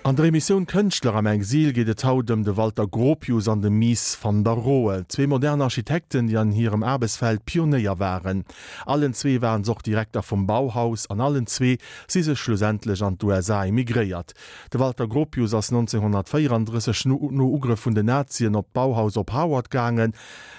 An der Emissioun Kënschtler am Exil geet et haut ëm de Walter Gropius an de Mies van der Rohe, zwee modern Architekten, déi an hirem Aarbechtsfeld Pionéier waren. Allen zwee waren se och Direkter vum Bauhaus an allen zwee si se schlussendlech an d'USA emigréiert. De Walter Gropius ass 1934 no Ugrëff vun den Nazien op d'Bauhaus op Harvard gaangen.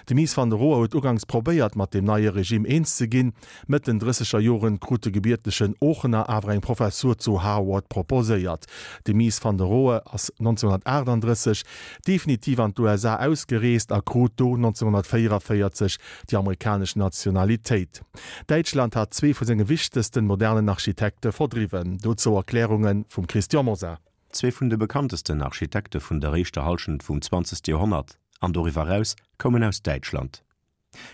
De Mies van der Rohe huet uganks probéiert, mat deem neie Regime eens ze ginn. Mëtt den drësseger Joren krut de gebiertegen Oochener awer eng Professur zu Harward proposéiert. De Mies van der Rohe ass 1938 definitiv an d'USA ausgereest a krut do 1944 déi amerikanesch Nationalitéit. Däitschland hat zwee vu senge wichtegsten modernen Architekte verdriwwen. Dozou Erklärunge vum Christian Mosar. Zwee vun de bekanntesten Architekte vun der éischter Hallschent vum zwanzegste Joerhonnert an doriwwer eraus koumen aus Däitschland.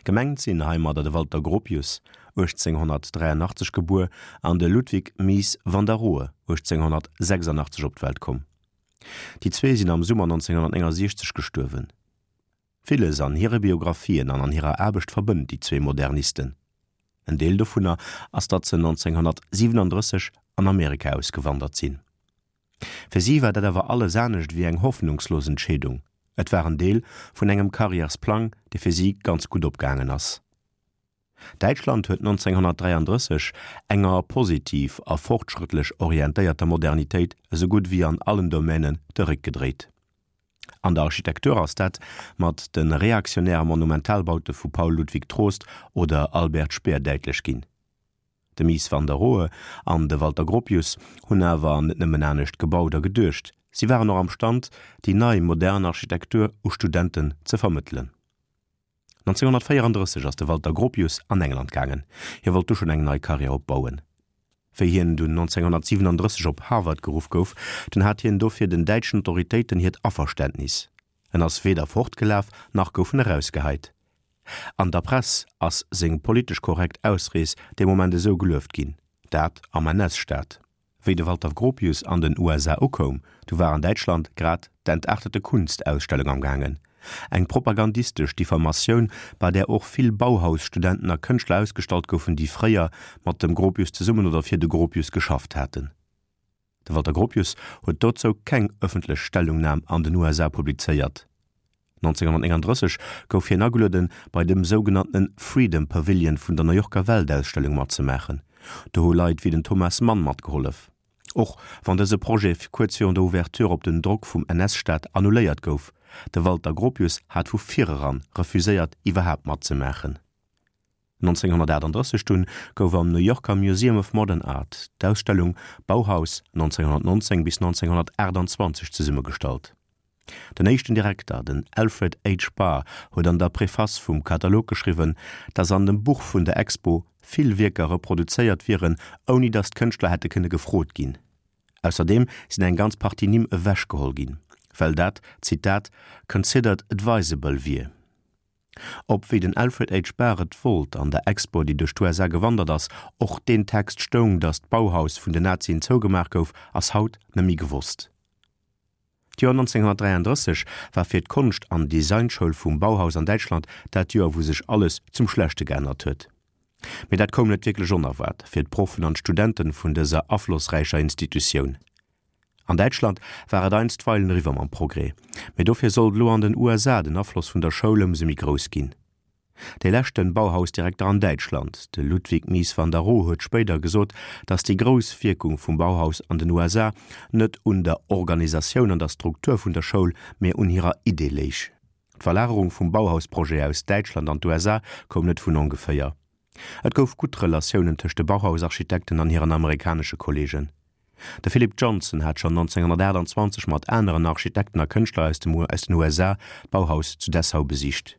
Gemengt sinn heimadder de Walter Gropius, 1883 gebuer, an de Ludwig Mies van der Rohe, 1886 op d'Welt komm. Déi zwee sinn am Summer 1969 gestuerwen. Villes an hire Biographien an an hirer Aarbecht verbënnt déi zwee Modernisten. En Deel dovunner ass, datt se 1937 an Amerika ausgewandert sinn. Fir si war dat awer alles anescht ewéi eng hoffnungslos Entscheedung, et war en Deel vun engem Karriärsplang, dee fir si ganz gutt opgaangen ass. Däitschland huet 1933 enger positiv a fortschrëttlech orientéierter Modernitéit esou gutt ewéi an allen Domänen de Réck gedréit. An der Architektur ass dat mat de reaktionäre Monumentalbaute vu Paul Ludwig Troost oder Albert Speer däitlech ginn. De Mies van der Rohe an de Walter Gropius hunn awer net nëmmen anescht gebaut a geduecht, si waren och am Stand, déi nei modern Architektur u Studenten ze vermëttelen. 1934 ass de Walter Gropius an England gaangen, hie wollt du schonn eng nei Karriär opbauen. Wéi hien dunn 1937 op Harvard geruff gouf, dunn hat hien dofir den däitschen Autoritéiten hiert Averständnis. En ass weder fortgelaf, nach gouf en erausgeheit. An der Press ass seng politesch korrekt Ausrees dee Moment esou gelueft ginn, dat am NS-Staat. Wéi de Walter Gropius an den USA ukoum, du war an Däitschland grad d'Entartete Kunst-Ausstellung am gaangen, eng propagandistesch Diffamatioun, bei där och vill Bauhaus-Studenten a Kënschtler ausgestallt goufen, déi fréier mat dem Gropius zesummen oder fir de Gropius geschafft haten. De Walter Gropius huet dozou keng ëffentlech Stellungnam an den USA publizéiert. 1939 gouf hien agelueden, bei dem sougenanntene Freedom Pavilion vun der New Yorker Weltausstellung matzemaachen. Do hu Leit wéi den Thomas Mann matgehollef. Och wann dëse Projet kuerz virun der Ouverture op den Drock vum NS-Staat annuléiert gouf, de Walter Gropius hat vu vireran refuséiert iwwerhaapt matzemaachen. 1938 dunn gouf am New Yorker Museum of Modern Art d'Ausstellung Bauhaus 1919 bis 1928 zesummegestallt. Den éischten Direkter, den Alfred H. Barr, huet an der Preface vum Katalog geschriwwen, datt an dem Buch vun der Expo vill Wierker reproduzéiert wieren, ouni datt d'Kënschtler hätte kënne gefrot ginn. Ausserdeem sinn eng ganz Partie Nimm ewechgeholl ginn, well dat, Zitat, considered advisable wier. Ob, wéi den Alfred H. Barr et wollt, an der Expo, déi duerch d'USA gewandert ass, och deen Text stoung, datt d'Bauhaus vun den Nazien zougemaach gouf, ass haut net méi gewosst. D'Joer 1933 war fir d'Konscht an Designschoul vum Bauhaus an Däitschland dat Joer, wou sech alles zum Schlechte geännert huet. Mee dat koum net wierklech onerwaart fir d'Proffen an d'Studenten vun dëser aflossräicher Institutioun. An Däitschland war et einstweilen eriwwer mam Progrès, mee dofir sollt elo an den USA den Afloss vun der Schoul ëmsou méi grouss ginn. Dee leschten Bauhausdirekter an Däitschland, de Ludwig Mies van der Rohe huet spéider gesot, datt déi grouss Wierkung vum Bauhaus an den USA net un der Organisatioun an der Struktur vun der Schoul, mee un hirer Idee léich. D'Verlagerung vum Bauhausprojet aus Däitschland an d'USA koum net vun ongeféier. Et gouf gutt Relatiounen tëscht de Bauhausarchitekten an hiren amerikanesche Kolleegen. De Philip Johnson hat schonn 1928 mat aneren Architekten a Kënschtler aus dem aus den USA d'Bauhaus zu Dessau besicht.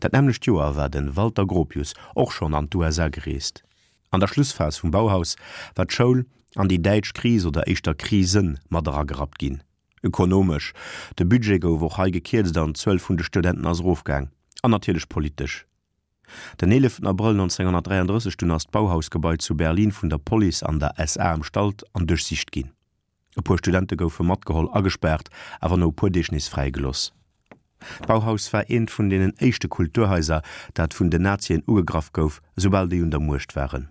Dat nämmlecht Joer war de Walter Gropius och schonn an d'USA gereest. An der Schlussphas vum Bauhaus war d'Schoul an déi däitsch Kris oder éischter Krisen mat eragerappt ginn. Ökonomesch, de Budget gouf och hei gekierzt an d'Zuel vun de Studenten ass erofgaang. An natierlech politesch. Den 11 Abrëll 1933 dunn ass d'Bauhausgebai zu Berlin vun der Police an der SA ëmstallt an duerchsicht ginn. E puer Studente goufe matgeholl, agespaart, awer no e puer Deeg nees fräigelooss. D'Bauhaus war eent vun deenen éischte Kulturhaiser, dat vun den Nazien ugegraff gouf, esoubal déi un der Muecht waren.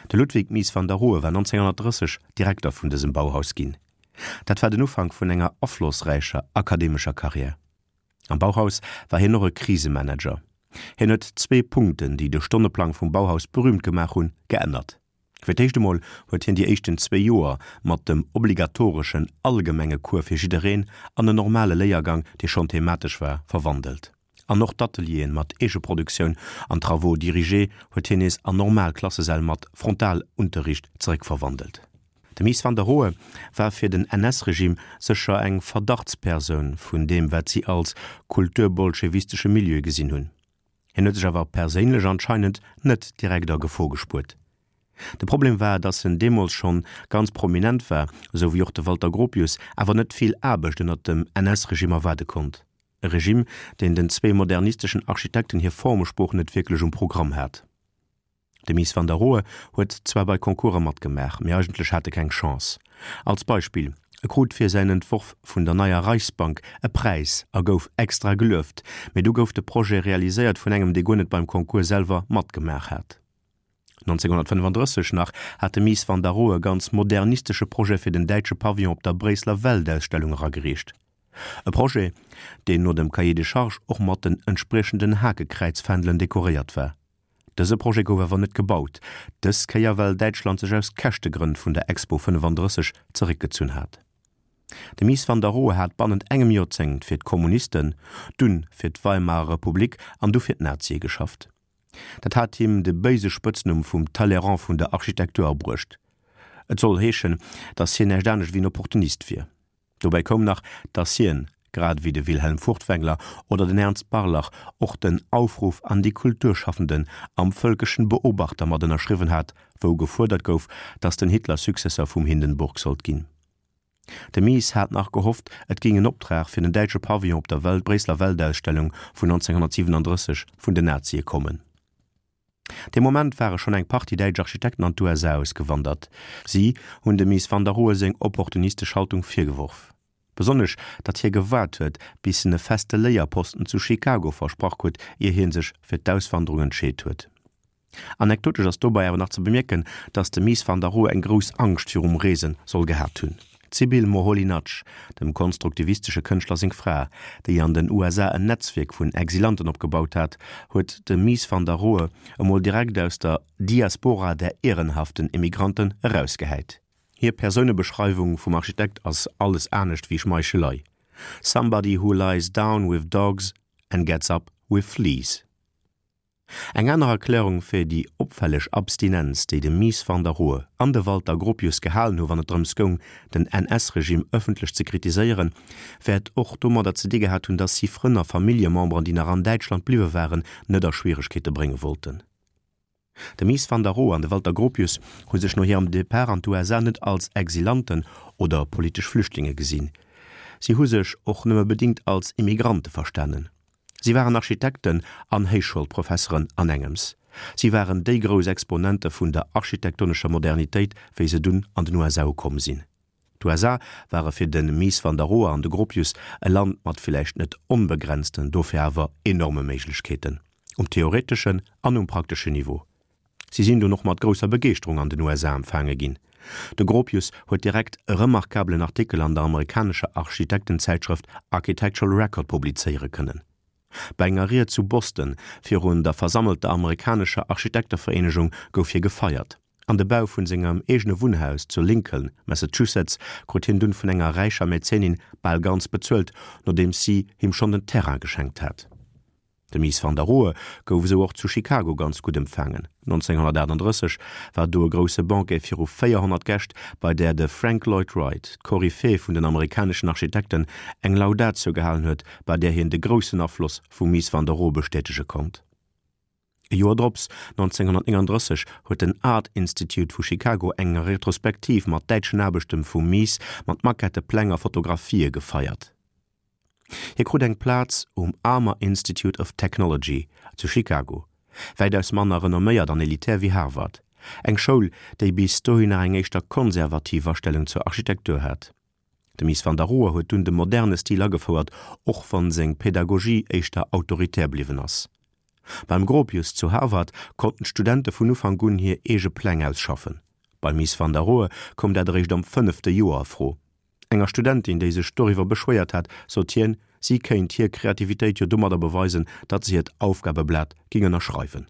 De Ludwig Mies van der Rohe war 1930 Direkter vun dësem Bauhaus ginn. Dat war den Ufank vun enger aflossräicher akademescher Karriär. Am Bauhaus war hien och e Krisemanager. Hien huet zwee Punkten, déi de Stonneplang vum Bauhaus berüümt gemaach hunn, geännert. Fir d'éischt emol huet hien déi éischten zwéi Joer mat dem obligatoreschen allgemenge Cours fir jiddereen an en normale Léiergang, dee schonn thematesch war, verwandelt. An och d'Atelieren mat Eegeproduktioun an Travaux dirigés huet hien nees an normal Klassesäll mat Frontalunterricht zeréckverwandelt. De Mies van der Rohe war fir den NS-Regime sécher eng Verdachtspersoun vun deem wat si als kulturbolschewistesche Milieu gesinn hunn. Hien huet sech awer perséinlech anscheinend net direkt a Gefor gespuert. De Problem war, datt en deemools schonn ganz prominent war, esou wéi och de Walter Gropius, awer net vill Aarbecht ënnert dem NS-Regime erwaarde konnt. E Regime, deen den zwee modernisteschen Architekten hir Formesprooch net wierklech um Programm hat. De Mies van der Rohe huet zwar bei Concourse matgemaach, mee eigentlech hat e keng Chance. Als Beispill, E krut fir säin Entworf vun der neier Reichsbank e Präis a gouf extra gelueft, mee du gouf de Projet realiséiert vun engem, dee guer net beim Concours selwer matgemaach hat. 1935 nach hat de Mies van der Rohe e ganz modernistesche Projet fir den däitsche Pavillon op der Bréisseler Weltausstellung eragereecht. E Projet, deen no dem Cahier des charges och mat den entspriechenden Hakekräizfändelen dekoréiert war. Dëse Projet gouf awer net gebaut, dës Kéier well Däitschland sech aus Käschtegrënn vun der Expo 35 zeréckgezunn hat. De Mies van der Rohe hat bannent engem Joerzéngt fir d'Kommunisten, dunn fir d'Weimarer Republik an du fir d'Nazie geschafft. Dat hat him de béise Spëtznumm vum Talleyrand vun der Architektur abruecht. Et soll heeschen, datt hien näischt anescht ewéi en Opportunist wier. Dobäi koum nach, datt hien, grad ewéi de Wilhelm Furtwängler oder den Ernst Barlach, och den Aufruf an die Kulturschaffenden am Völkischen Beobachter mat ënnerschriwwen hat, wou gefuerdert gouf, datt den Hitler Successeur vum Hindenburg sollt ginn. De Mies hat nach gehofft, et géing en Optrag fir den däitsche Pavillon op der Bréisseler Weltausstellung vun 1937 vun den Nazie kommen. Dee Moment ware schonn eng Partie däitsch Architekten an d'USA ausgewandert. Si hunn dem Mies van der Rohe seng opportunistesch Haltung virgeworf. Besonnesch, datt hie gewaart huet, bis en e feste Léierposten zu Chicago versprach krut, ier hie sech fir d'Auswanderung entscheet huet. Anekdotesch ass dobei awer nach ze bemierken, datt de Mies van der Rohe eng grouss Angscht virum Reese soll gehat hunn. D'Sybil Moholy-Nagy, dem konstruktivistesche Kënschtler seng Fra, déi an den USA en Netzwierk vun Exilanten opgebaut hat, huet de Mies van der Rohe emol direkt aus der Diaspora der ehrenhaften Emigranten erausgehäit. Hir Persounebeschreiwung vum Architekt ass alles anescht wéi Schmeichelei, Somebody who lies down with dogs and gets up with fleas. Eng aner Erklärung fir déi opfälleg Abstinenz, déi de Mies van der Rohe an de Walter Gropius gehalen hu wann et drëms goung, den NS-Regime ëffentlech ze kritiséieren, wäert och domadder ze di gehat hunn, datt si Frënn a Familljememberen, déi nach an Däitschland bliwwe waren, net a Schwieregkeete brénge wollten. De Mies van der Rohe an de Walter Gropius hu sech no hirem Depart an d'USA net als Exilanten oder politesch Flüchtlinge gesinn. Si hu sech och nëmme bedingt als Immigrante verstanen. Si waren Architekten an Héichschoulprofesseren an engems. Si waren déi grouss Exponente vun der architektonescher Modernitéit, wéi se dunn an den USA ukomm sinn. D'USA ware fir de Mies van der Rohe an de Gropius e Land mat villäicht net onbegrenzten, dofir awer enorme Méiglechkeeten, um theoreteschen an um prakteschen Niveau. Si sinn dunn och mat grousser Begeeschterung an den USA empfaange ginn. De Gropius huet direkt e remarkabelen Artikel an der amerikanescher Architektenzäitschrëft Architectural Record publizéiere kënnen. Bei enger Ried zu Boston virun der versammelter amerikanescher Architektevereenegung gouf hie gefeiert. An de Bau vun sengem eegene Wunnhaus zu Lincoln, Massachusetts, krut hien dunn vun enger räicher Mäzenin bal ganz bezuelt, nodeems si him schonn den Terrain geschenkt hat. De Mies van der Rohe gouf esou och zu Chicago ganz gutt empfaangen. 1938 war do e grousse Banquet viru 400 Gäscht, bei där de Frank Lloyd Wright, d'Koryphäe vun den amerikaneschen Architekten, eng Laudatio gehalen huet, bei där hien de groussen Afloss vum Mies van der Rohe bestätege konnt. E Joer drops, 1939, huet den Art Institute vu Chicago eng Retrospektiv mat däitschen Aarbechte vum Mies mat Maquette, Pläng a Fotografië gefeiert. Hie krut eng Plaz um Armour Institute of Technology zu Chicago, wäitaus manner renomméiert an elitär wéi Harvard, eng Schoul, déi bis dohin nach eng éischter konservativ Astellung zur Architektur hat. De Mies van der Rohe huet dunn de moderne Stil agefouert, och wann seng Pedagogie éischter autoritär bliwwen ass. Beim Gropius zu Harvard konnten d'Studente vun Ufank un hir eege Pläng ausschaffen. Beim Mies van der Rohe koum dat eréischt am fënnefte Joer a Fro. Enger Studentin, déi sech doriwwer beschwéiert hat, sot hien, si kéint hir Kreativitéit jo domadder beweisen, datt se hiert Aufgabeblat ging ënnerschreiwen.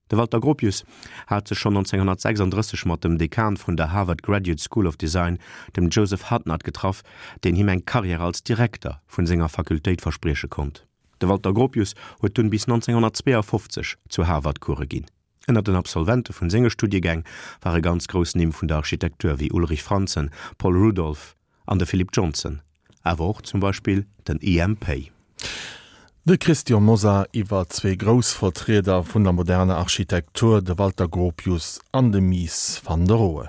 De Walter Gropius hat sech schonn 1936 mat dem Dekan vun der Harvard Graduate School of Design, dem Joseph Hudnut, getraff, deen him eng Karriär als Direkter vun senger Fakultéit versprieche konnt. De Walter Gropius huet dunn bis 1952 zu Harvard Course ginn. Ënner den Absolvente vun senge Studiegäng ware ganz grouss Nimm vun der Architektur wéi Ulrich Franzen, Paul Rudolph an de Philip Johnson, awer och zum Beispill den IM. Pei. De Christian Mosar iwwer zwee grouss Vertrieder vun der moderner Architektur, de Walter Gropius an de Mies van der Rohe.